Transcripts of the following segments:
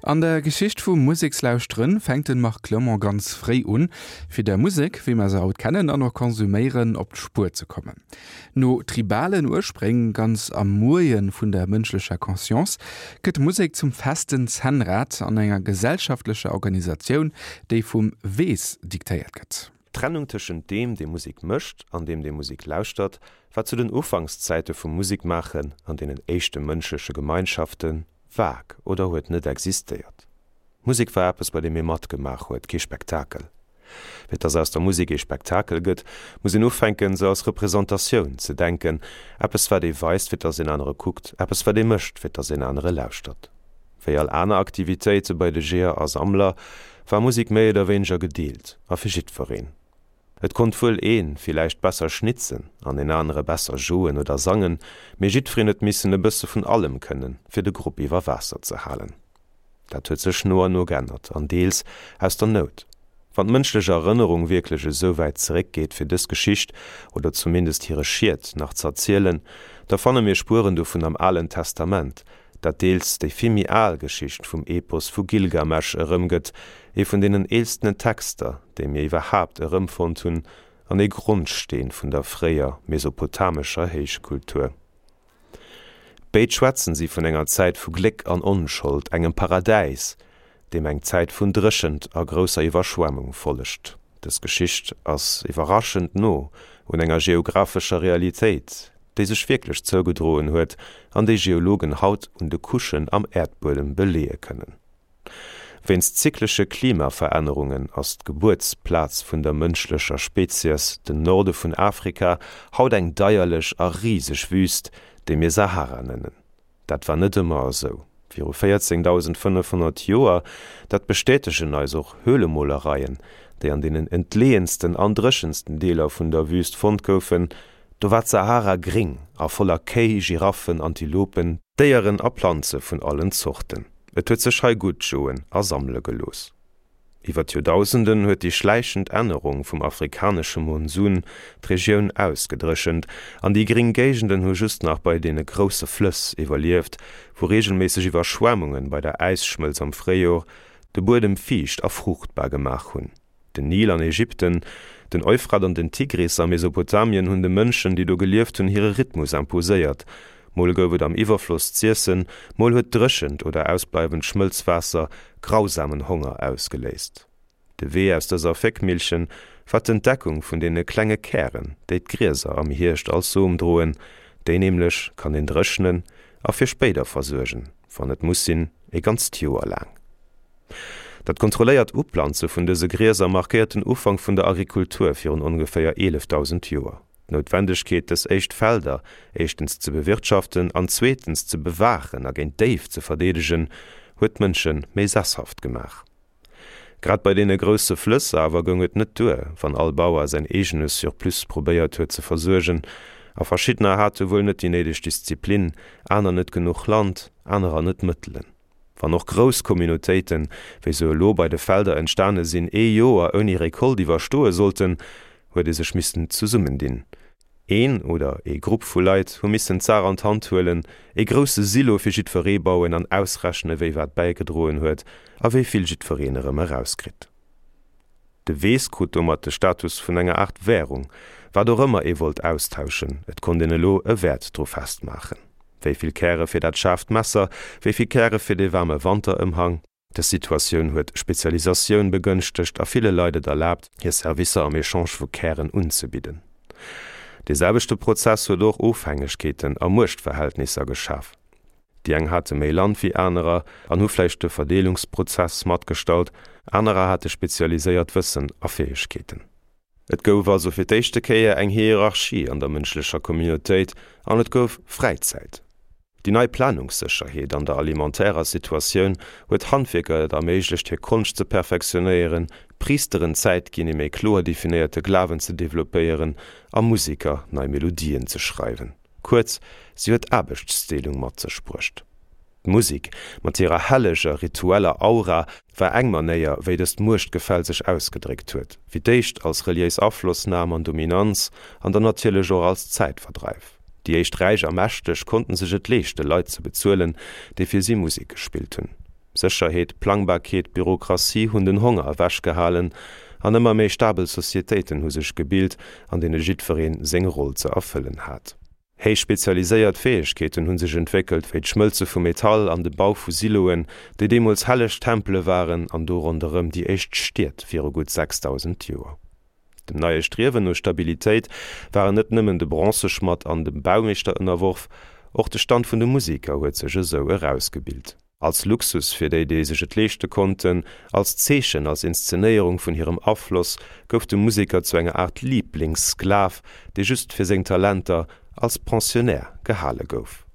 An der Geschicht vum Musekslauschteren fänkt den Marc Clement ganz fréi un, fir der Musek, wéi mer se haut kennen an och konsuméieren, op d'Spuer ze kommen. No tribalen Urspréng, ganz am Moien vun der mënschlecher Conscience, gëtt Musek zum festen Zännrad an enger gesellschaftlecher Organisatioun, déi vum Weess diktéiert gëtt. D'Trennung tëschent deem, dee Musek mécht, an deem, dee Musek lauschtert, war zu den Ufankszäite vum Musekmaachen an deenen éischte mënschleche Gemeinschafte vag oder huet net existéiert. Musek war eppes, bei deem ee matgemaach huet, kee Spektakel. Fir dass aus der Musek ee Spektakel gëtt, muss een ufänken, se als Representatioun ze denken, eppes wat ee weist, fir dass een anere kuckt, eppes wat ee mécht, fir dass een anere lauschtert. Wéi all aner Aktivitéite bei de Jeeër a Sammler, war Musek méi oder wéineger gedeelt a fir jiddwereen. Et konnt wuel ee villäicht besser schnitzen an een anere besser joen oder sangen, mee jiddwereen huet missen e bësse vun allem kënnen, fir de Grupp iwwer Waasser ze halen. Dat huet sech no an no g'ännert, an deels aus der Nout. Wann d'mënschlech Erënnerung wierklech esou wäit zeréckgeet, fir dës Geschicht, oder zumindest hire Schiet, nach z'erzielen, da fanne mir Spueren dovun am Alen Testament, dat deels déi vill méi al Geschicht vum Epos vu Gilgamesch erëmgëtt, ee vun deenen eelstene Texter, déi mir iwwerhaapt erëmfonnt hunn, an ee Grondsteen vun der fréier mesopotamescher Héichkultur. Béid schwätzen si vun enger Zäit vu Gléck an Onschold, engem Paradäis, deem eng Zäit vun Dréchent a grousser Iwwerschwemmung follegt. Dës Geschicht ass iwwerraschend no un enger geographescher Realitéit, déi sech wierklech zougedroen huet an déi Geologen haut un de Couchen am Äerdbuedem beleeë kënnen. Wéinst zyklesche Klimaverännerungen ass d'Gebuertsplaz vun der mënschlecher Spezies, den Norde vun Afrika, haut eng deierlech a riseg Wüst, déi mir Sahara nennen. Dat war net ëmmer esou. Viru 14.500 Joer, dat bestätegen eis och Höhlemolereien, déi an deenen entleeënsten an dréchensten Deeler vun der Wüst fonnt goufen, do war d'Sahara gréng a voller Kéi, Giraffen, Antilopen, Déieren a Planze vun allen Zorten. Et huet sech hei gutt joen a sammele gelooss. Iwwer d'Joerdausenden huet déi schläichend Ännerung vum afrikanesche Monsun d'Regioun ausgedréchent an déi gréng Géigenden hu just nach bei deene grousse Flëss iwwerlieft, wou reegelméisseg Iwwerschwemmunge bei der Äisschmëlz am Fréijor de Buedem fiicht a fruuchtbar gemaach hunn. Den Nil an Ägypten, den Euphrat an den Tigris a Mesopotamien hunn de Mënschen, déi do gelieft hunn, hire Rhythmus imposéiert. Mol gouf et am Iwwerfloss z'iessen, mol huet dréchent oder ausbleiwend Schmëlzwaasser grausamen Honger ausgeléist. De Wee aus dëser Féckmillchen war d'Entdeckung vun deene klenge Kären, déi d'Grieser am Hierscht als Som droen. Déi nämlech kann een dréchnen a fir spéider versuergen, wann et muss sinn, ee ganzt Joer laang. Dat kontrolléiert Uplanze vun dëse Grieser markéiert den Ufank vun der Agrikultur virun ongeféier 11.000 Joer. D'Noutwendegkeet, dës éischt Felder éischtens ze bewirtschaften an zweetens ze bewaachen a géint Déif ze verdeedegen, huet d'Mënsche méi sesshaft gemaach. Grad bei deene grousse Flëss awer goung et net duer, wann all Bauer säin eegene Surplus probéiert huet ze versuergen, a verschiddener hate wuel net déi néideg Disziplin, aner net genuch Land, anerer net d'Mëttelen. Wann och grouss Communautéiten, wéi se elo bei de Felder entstane sinn, ee Joer ouni Récolte iwwerstoe sollten, huet ee sech missten zesummendinn. Een oder ee Grupp vu Leit hu missen d'Saach an d'Hand huelen, ee grousse Silo fir jiddweree bauen an ausrechne wie wat bäigedroen huet a wéi vill jiddwereen erëm erauskritt. De Weess krut domat de Status vun enger Aart Währung. Wat och ëmmer ee wollt austauschen, et konnt een elo e Wäert dru festmaachen. Wéi vill Käre fir dat schaarft Messer, wéi vill Käre fir dee waarme Wanterëmhang. Dës Situatioun huet Spezialisatioun begënschtegt a ville Leit et erlaabt, hir Servicer am Echange vu Kären unzebidden. Dee selwechte Prozess huet och Ofhängegkeeten a Muechtverhältnisser geschaf. Déi eng hate méi Land wéi anerer an hu vläicht de Verdeelungsprozess matgestallt, anerer hate spezialiséiert Wëssen a Fäegkeeten. Et gouf also fir d'éischte Kéier eng Hierarchie an der mënschlecher Communautéit an et gouf Fräizäit. Déi nei Planungssécherheet an der alimentärer Situatioun huet Handwierker et erméiglecht hir Konscht ze perfektionéieren, Priisteren Zäit ginn ee méi kloer definéierte Glawen ze developpéieren a Museker nei Melodien ze schreiwen. Kuerz, si huet Aarbechtsdeelung mat sech bruecht. D'Musik, mat hirer helleger, ritueller Aura, war eng Manéier, wéi dëst Muechtgefäll sech ausgedréckt huet, fir d'éischt als reliéis Aflossnam an Dominanz an dann natierlech och als Zäitverdreif. Déi éischt Räich a Mächteg konnten sech et leeschte Leit ze bezuelen, déi fir si Musek gespillt hunn. Sécherheet, Plangbarkeet, Bürokratie hunn den Honger ewechgehalen an ëmmer méi stabel Societéiten hu sech gebilt, an deene jiddweree seng Roll ze erfëllen hat. Héich spezialiséiert Fäegkeeten hu sech entwéckelt, wéi d'Schmëlze vu Metall an de Bau vu Siloen, déi deemools helleg Tempele waren an do ronderëm déi éischt Stied viru gutt 6.000 Joer. Dem neie Striewen no Stabilitéit waren net nëmmen de Bronzeschmadd an de Baumeeschter ënnerworf, och de Stand vun de Museker huet sech esou erausgebilt. Als Luxus fir déi, déi sech et leeschte konnten, als Zeechen, als Inszenéierung vun hirem Afloss, gouf de Museker zu enger Aart Liiblingssklav, dee just fir seng Talenter als Pensionnaire gehale gouf.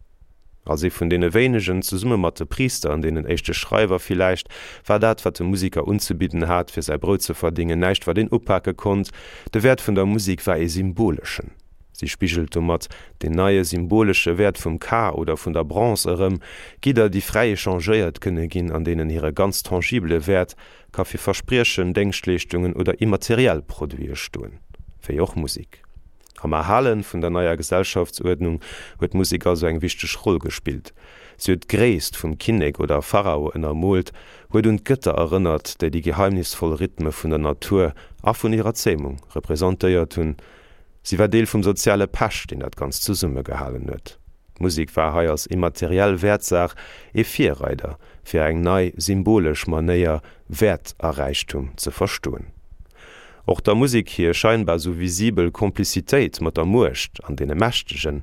Als ee vun deene wéinegen, zesumme mat de Priister an deenen éischte Schreiwer villäicht, war dat, wat de Museker unzebidden hat, fir säi Brout ze verdéngen, näischt, wat een upake konnt. De Wäert vun der Musek war ee symboleschen. Si spigelt domat deen neie symbolesche Wäert vum K oder vun der Bronze erëm, Gidder, déi fräi echangéiert kënne ginn an deenen hire ganz tangibele Wäert ka fir Verspriechen, Déngschtleeschtungen oder immateriell Produite stoen, wéi och Musek. Am Erhale vun der neier Gesellschaftsuerdnung huet d'Musek also eng wichteg Roll gespillt. Si huet d'Gréisst vum Kinnek oder Pharao ënnermoolt, huet un d'Gëtter erënnert, déi déi geheimnisvoll Rhythme vun der Natur a vun hirer Zämung representéiert hunn, Si war Deel vum soziale Pech, deen dat Ganzt zesummegehalen huet. D'Musek war hei als immateriell Wäertsaach ee Virreider, fir eng nei, symbolesch Manéier, Wäert a Räichtum ze verstoen. Och der Musek hir scheinbar sou visibel Komplizitéit mat der Muecht an deene Mächtegen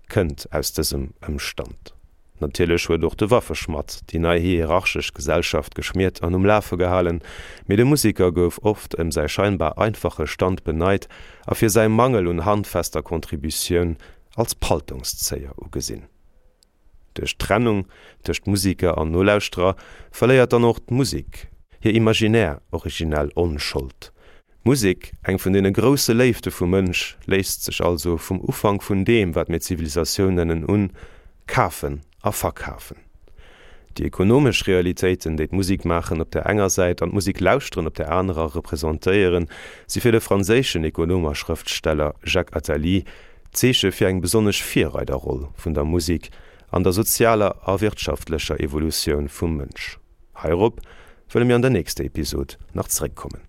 kënnt aus dësem Ëmstand. Natierlech huet och de Waffeschmadd déi nei hierarchesch Gesellschaft geschmiert an um Lafe gehalen, mee de Museker gouf oft ëm säi scheinbar einfache Stand beneit a fir säi Mangel un handfester Contributioun als Paltongszéier ugesinn. Duerch d'Trennung tëscht Museker an Nolauschterer verléiert dann och d'Musek hir imaginär originell Onschold. D'Musek, eng vun deene grousse Léifte vum Mënsch, léisst sech also vum Ufank vun deem, wat mir Zivilisatioun nennen, un, kafen a verkafen. Déi ekonomesch Realitéiten, déi d'Musikmaachen op der enger Säit an d'Musiklauschteren op der anerer representéieren, si fir de franséischen Ekonom a Schrëftsteller Jacques Attali d'Zeeche fir eng besonnesch Virreiderroll vun der Musek an der sozialer a wirtschaftlecher Evolutioun vum Mënsch. Heirop wëlle mir an der nächster Episod nach zeréckkommen.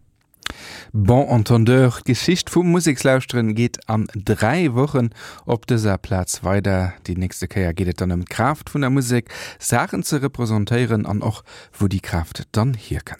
Bon entendeur, D'Geschicht vum Musekslauschteren geet an 3 Wochen op dëser Plaz weider. Déi nächste Kéier geet et dann ëm d'Kraaft vun der Musek, Saachen ze representéieren an och wou déi Kraaft dann hierkënnt.